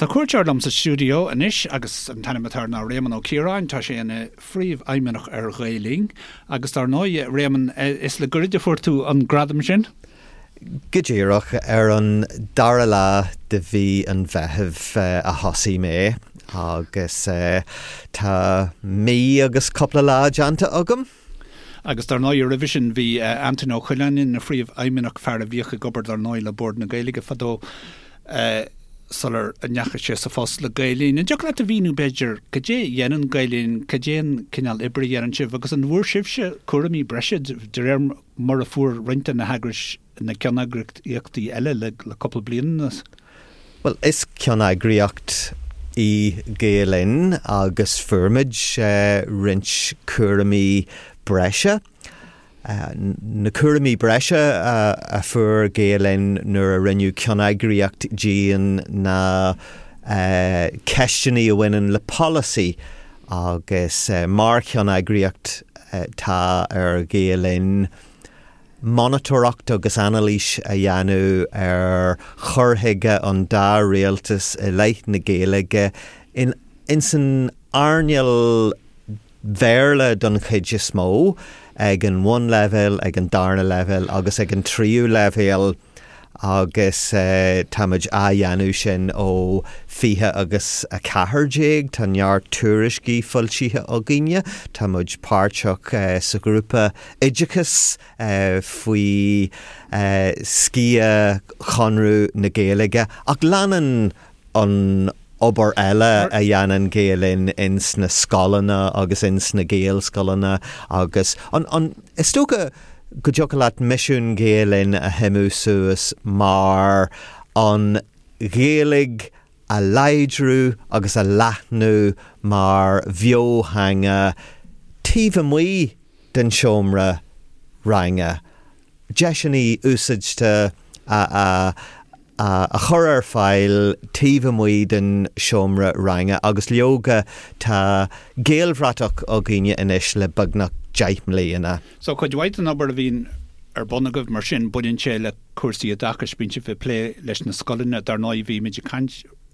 Tá cuairteoir liom sa stiúideo anois agus an t-ainm atá air ná Réamonn Ó Ciaráin. Tá sé ina phríomhfheidhmeannach ar Ghael Linn agus dar ndóigh, a Réamonn, is le goirid a fuair tú an gradam sin. Go díreach, ar an dara lá de mhí an Mheithimh a thosaigh mé agus tá mí agus cúpla lá déanta agam. Agus dar ndóigh roimhe sin bhí Antaine Ó Coileáin ina phríomhfheidhmeannach, fear a bhíodh ag obair dar ndóigh le Bord na Gaeilge fadó sular ndeachaigh sé sa phost le Gael Linn. An dtiocfadh leat a mhíniú b'fhéidir cad é a dhéanann Gael Linn, cad é an cineál oibre a dhéanann sibh agus an bhfuair sibhse cúraimí breise de réir mar a fuair roinnt de na heagrais na ceanneagraíochtaí eile le cúpla bliain anuas? Bhuel, is ceanneagraíocht í Gael Linn agus fuair muid roinnt cúraimí breise. Na cúraimí breise a fuair Gael Linn nuair a rinneadh ceanneagraíocht dínn ná ceisteanna a bhaineann le polasaí agus mar cheanneagraíocht tá ar Ghael Linn monatóireacht agus anailís a dhéanamh ar chur chuige an dá rialtas i leith na Gaeilge in san earnáil Bhéarla don chuid is mó, ag an bhunleibhéal, ag an darna leibhéal agus ag an tríú leibhéal agus táimid á dhéanamh sin ó 20 agus 14. Tá neart tuairiscí foilsithe againne. Tá muid páirteach sa ghrúpa oideachais faoi sciath Chonradh na Gaeilge ach leanann an obair eile a dhéanann Gael Linn ins na scoileanna agus ins na Gaelscoileanna agus an, an, is dócha go dtiocfadh leat misiún Ghael Linn a shuimiú suas mar an Ghaeilge a láidriú agus a leathnú mar bheotheanga taobh amuigh den seomra ranga, deiseanna úsáidte a a chur ar fáil taobh amuigh den seomra ranga agus leoga tá Gaelbhratach againne anois le beagnach 10 mbliana. So cuid mhaith den obair a bhíonn ar bun agaibh mar sin, baineann sé le cúrsaí oideachais, bíonn sibh ag plé leis na scoileanna, dar ndóigh bhí muid ag caint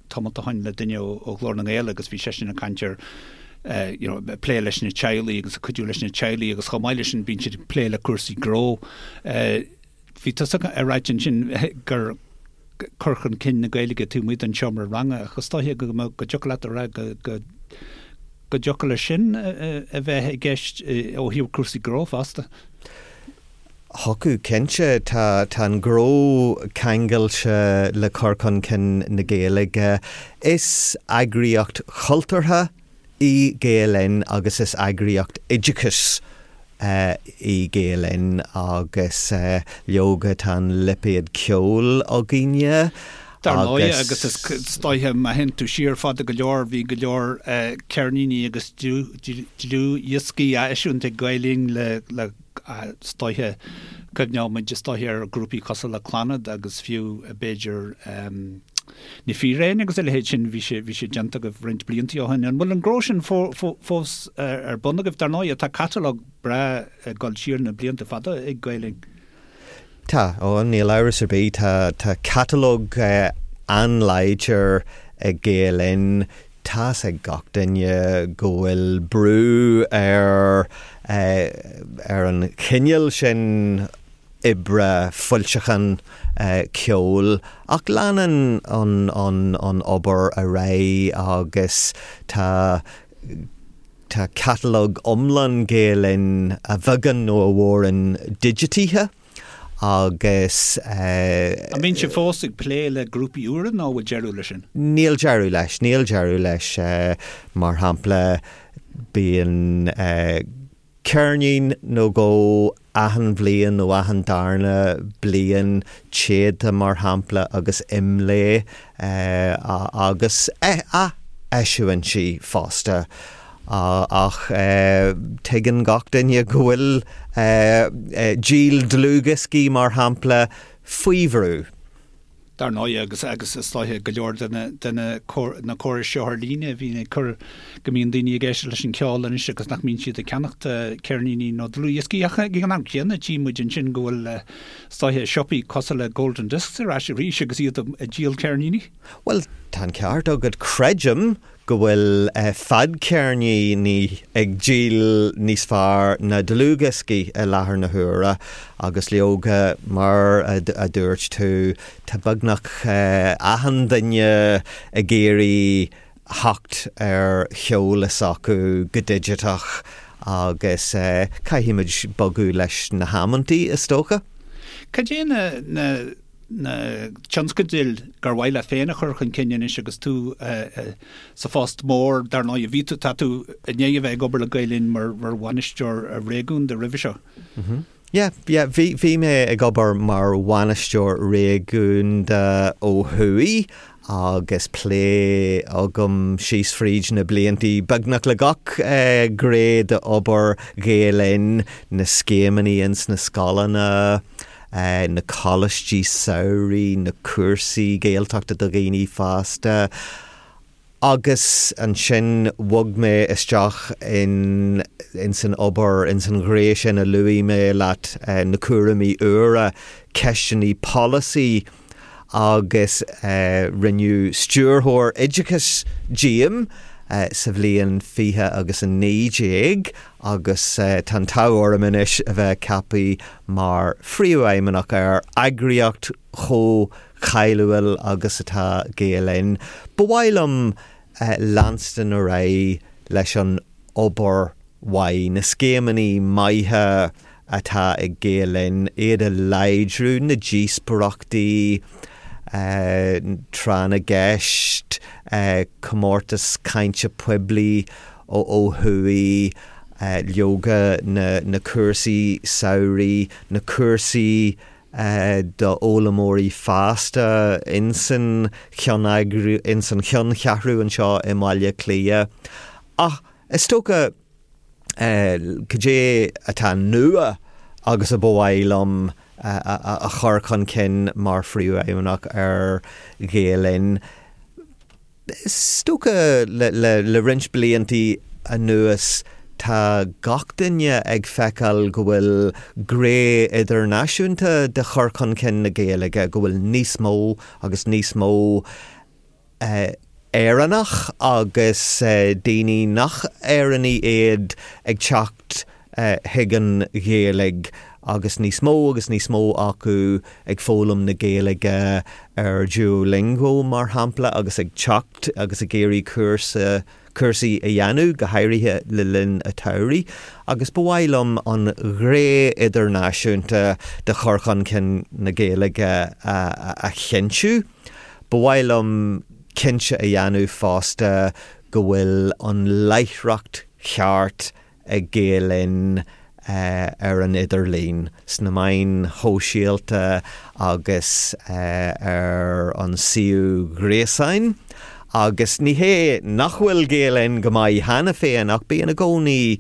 tamall ó shin le duine ó Ghlór na nGael agus bhí seisean ag caint ar you know ag plé leis na teaghlaigh agus ag cuidiú leis na teaghlaigh agus chomh maith leis sin bíonn siad ag plé le cúrsaí gnó. Bhí tusa ag ráit ansin gur cur chun cinn na Gaeilge taobh amuigh den seomra ranga ach is dóiche go go dtiocfadh leat a rá go go go dtiocfadh leis sin a bheith i gceist ó thaobh cúrsaí gnó fosta. Thiocfadh, cinnte. Tá tá an gnó ceangailte le cur chun cinn na Gaeilge. Is eagraíocht chultúrtha í Gael Linn agus is eagraíocht oideachais í Gael Linn agus leoga tá an lipéad ceoil againne Dar ndóigh, agus is dóiche má théann tú siar fada go leor, bhí go leor ceirníní agus dlúthdhioscaí á eisiúint ag Gael Linn le le is dóiche, cuimhneoidh muid is dóiche ar ghrúpaí cosúil le Clannad agus fiú b'fhéidir Na Fíréin agus a leithéid sin, bhí sé, bhí sé déanta agaibh roinnt blianta ó shin. An bhfuil an gnó sin fós ar bun agaibh? Dar ndóigh, tá catalóg breá ag dul siar na blianta fada ag Gael Linn. Tá, ó, níl amhras ar bith, tá, tá catalóg an-láidir ag Gael Linn. Tá's ag gach duine go bhfuil brú ar, ar an chineál sin oibre foilseachán ceoil ach leanann an an obair ar aghaidh agus tá tá catalóg iomlán Gael Linn a bheagán nó a mhórán digitithe agus. An mbíonn sibh fós ag plé le grúpaí úra nó an bhfuil deireadh leis sin? Níl deireadh leis, níl deireadh leis. Mar shampla, bíonn ceirnín nó dhó achan bhliain nó achan darna bliain, Téada mar shampla agus IMLÉ agus ath-eisiúintí fosta. Ach tuigeann gach duine go bhfuil díol dlúthdhioscaí mar shampla faoi bhrú. Dar ndóigh, agus agus is dóiche go leor de na de na na córais seo ar líne a bhíonn ag cur go mbíonn daoine ag éisteacht leis an cheol anois agus nach mbíonn siad ag ceannacht ceirníní nó dlúthdhioscaí. Ach ag an am céanna tchí muid ansin go bhfuil is dóiche siopaí cosúil le Golden Discs ar ais arís agus iad ag díol ceirníní. Bhuel, tá an ceart agat. Creidim go bhfuil fadcheirníní ag díol níos fearr ná dlúthdhioscaí i láthair na huaire agus leoga, mar a dúirt tú, tá beagnach achan duine ag iarraidh theacht ar cheol s'acu go digiteach agus caithfimid bogadh leis na hamantaí, is dócha. Cad é na na tionscadail gur mhaith leat féin a chur chun cinn anois agus tú sa phost mór, dar ndóigh, bhí tú, tá tú i ndiaidh a bheith ag obair le Gael Linn mar bhainisteoir réigiúnda roimhe seo. Yeah, yeah, bhí, bhí mé ag obair mar bhainisteoir réigiúnda ó thuaidh agus plé agam síos fríd na bliantaí beagnach le gach gné d'obair Ghael Linn, na scéimeanna ins na scoileanna, na coláistí samhraidh, na cúrsaí Gaeltachta do dhaoine fásta agus ansin bhog mé isteach in ins an obair, ins an ghné sin a luaigh mé leat, na cúraimí úra, ceisteanna polasaí agus rinneadh Stiúrthóir Oideachais díom sa bhliain 20 agus 19 agus tá an t-ádh orm anois a bheith ceaptha mar Phríomhfheidhmeannach ar eagraíocht chomh cáiliúil agus atá Gael Linn. Ba mhaith liom leanstan ar aghaidh leis an obair mhaith, na scéimeanna maithe atá ag Gael Linn, iad a láidriú, na díospóireachtaí, tráth na gceist, comórtas cainte poiblí ó thuaidh, leoga na cúrsaí samhraidh, na cúrsaí d'fhoghlaimeoirí fásta insan cheanncheathrú anseo i mBaile Átha Cliath. Ach is dócha cad é atá nua agus a ba mhaith liom a chur chun cinn mar Phríomhfheidhmeannach ar Ghael Linn. Is dócha le roinnt bliantaí anuas tá gach duine ag feiceáil go bhfuil gné idirnáisiúnta de chur chun cinn na Gaeilge, go bhfuil níos mó agus níos mó Éireannach agus daoine nach Éireannaigh iad ag teacht chuig an Ghaeilge agus níos mó agus níos mó acu ag foghlaim na Gaeilge ar Duolingo, mar shampla, agus ag teacht agus ag iarraidh cúrsa, cúrsaí a dhéanamh, go háirithe le linn an tsamhraidh. Agus ba mhaith liom an ghné idirnáisiúnta de chur chun cinn na Gaeilge a chinntiú. Ba mhaith liom cinnte a dhéanamh fosta go bhfuil an láithreacht cheart ag Gael Linn ar an idirlíon, sna meáin shóisialta agus ar an suíomh gréasáin. Agus ní hé nach bhfuil Gael Linn go maith cheana féin ach bíonn i gcónaí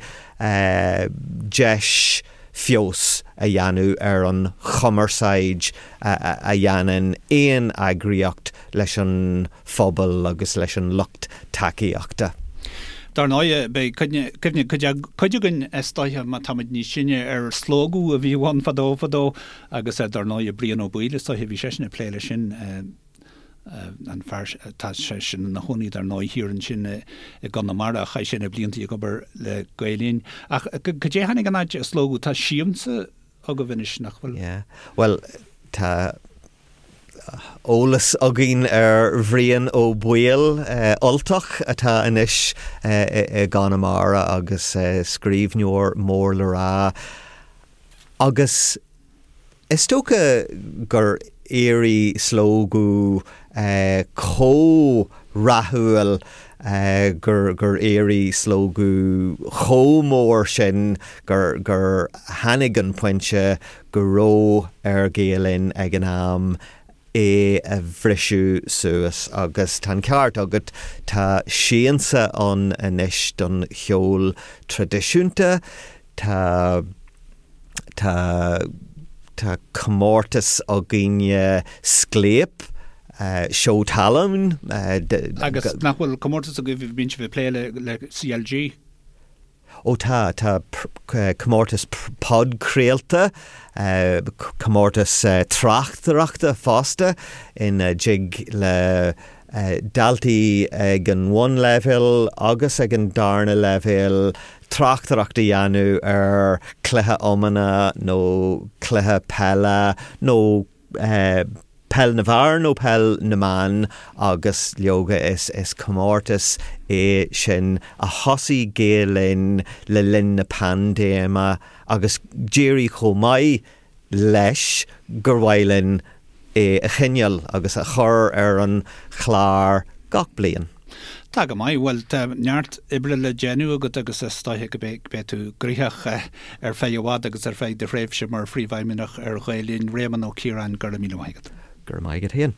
deis feabhas a dhéanamh ar an chumarsáid a dhéanann aon eagraíocht leis an phobal agus leis an lucht tacaíochta. Dar ndóigh, beidh cuimhne cuid againn is dóiche, má táimid níos sine, ar Slógadh a bhí ann fadó fadó agus dar ndóigh Brian Ó Baoill is dóiche, bhí seisean ag plé leis sin, an fear, tá seisean ina chónaí dar ndóigh thiar ansin i gConamara, chaith sé na blianta ag obair le Gael Linn. Ach cad é tháinig in áit Slógadh? Tá Siamsa agaibh anois, nach bhfuil? Yeah. Bhuel, tá eolas againn ar Bhrian Ó Baoill, Ultach atá anois i gConamara agus scríbhneoir mór le rá. Agus is dócha gur éirigh Slógadh chomh rathúil, gur éirigh Slógadh chomh mór sin gur tháinig an pointe go raibh ar Ghael Linn ag an am é a bhriseadh suas agus tá an ceart agat, tá Siansa ann anois don cheol traidisiúnta, tá, tá, tá comórtas againne, Scléip. Seó talún. Agus nach bhfuil comórtas agaibh, bíonn sibh ag plé le CLG? Ó tá, tá comórtas podchraolta, comórtas tráchtaireachta fosta ina dtig le daltaí ag an bhunleibhéal agus ag an darna leibhéal tráchtaireacht a dhéanamh ar chluiche iomána nó cluiche peile nó peil na bhfear nó peil na mban agus leoga is is comórtas é sin a thosaigh Gael Linn le linn na paindéime agus d'éirigh chomh maith leis gur mhaith linn é a choinneáil agus a chur ar an chlár gach bliain. Tá go maith. Bhuel, tá neart oibre le déanamh agat agus is dóiche go mbeidh tú gnoitheach ar feadh i bhfad agus ar feadh do thréimhse mar Phríomhfheidhmeannach ar Ghael Linn. Réamonn Ó Ciaráin, go raibh míle maith agat. Go raibh maith agat féin.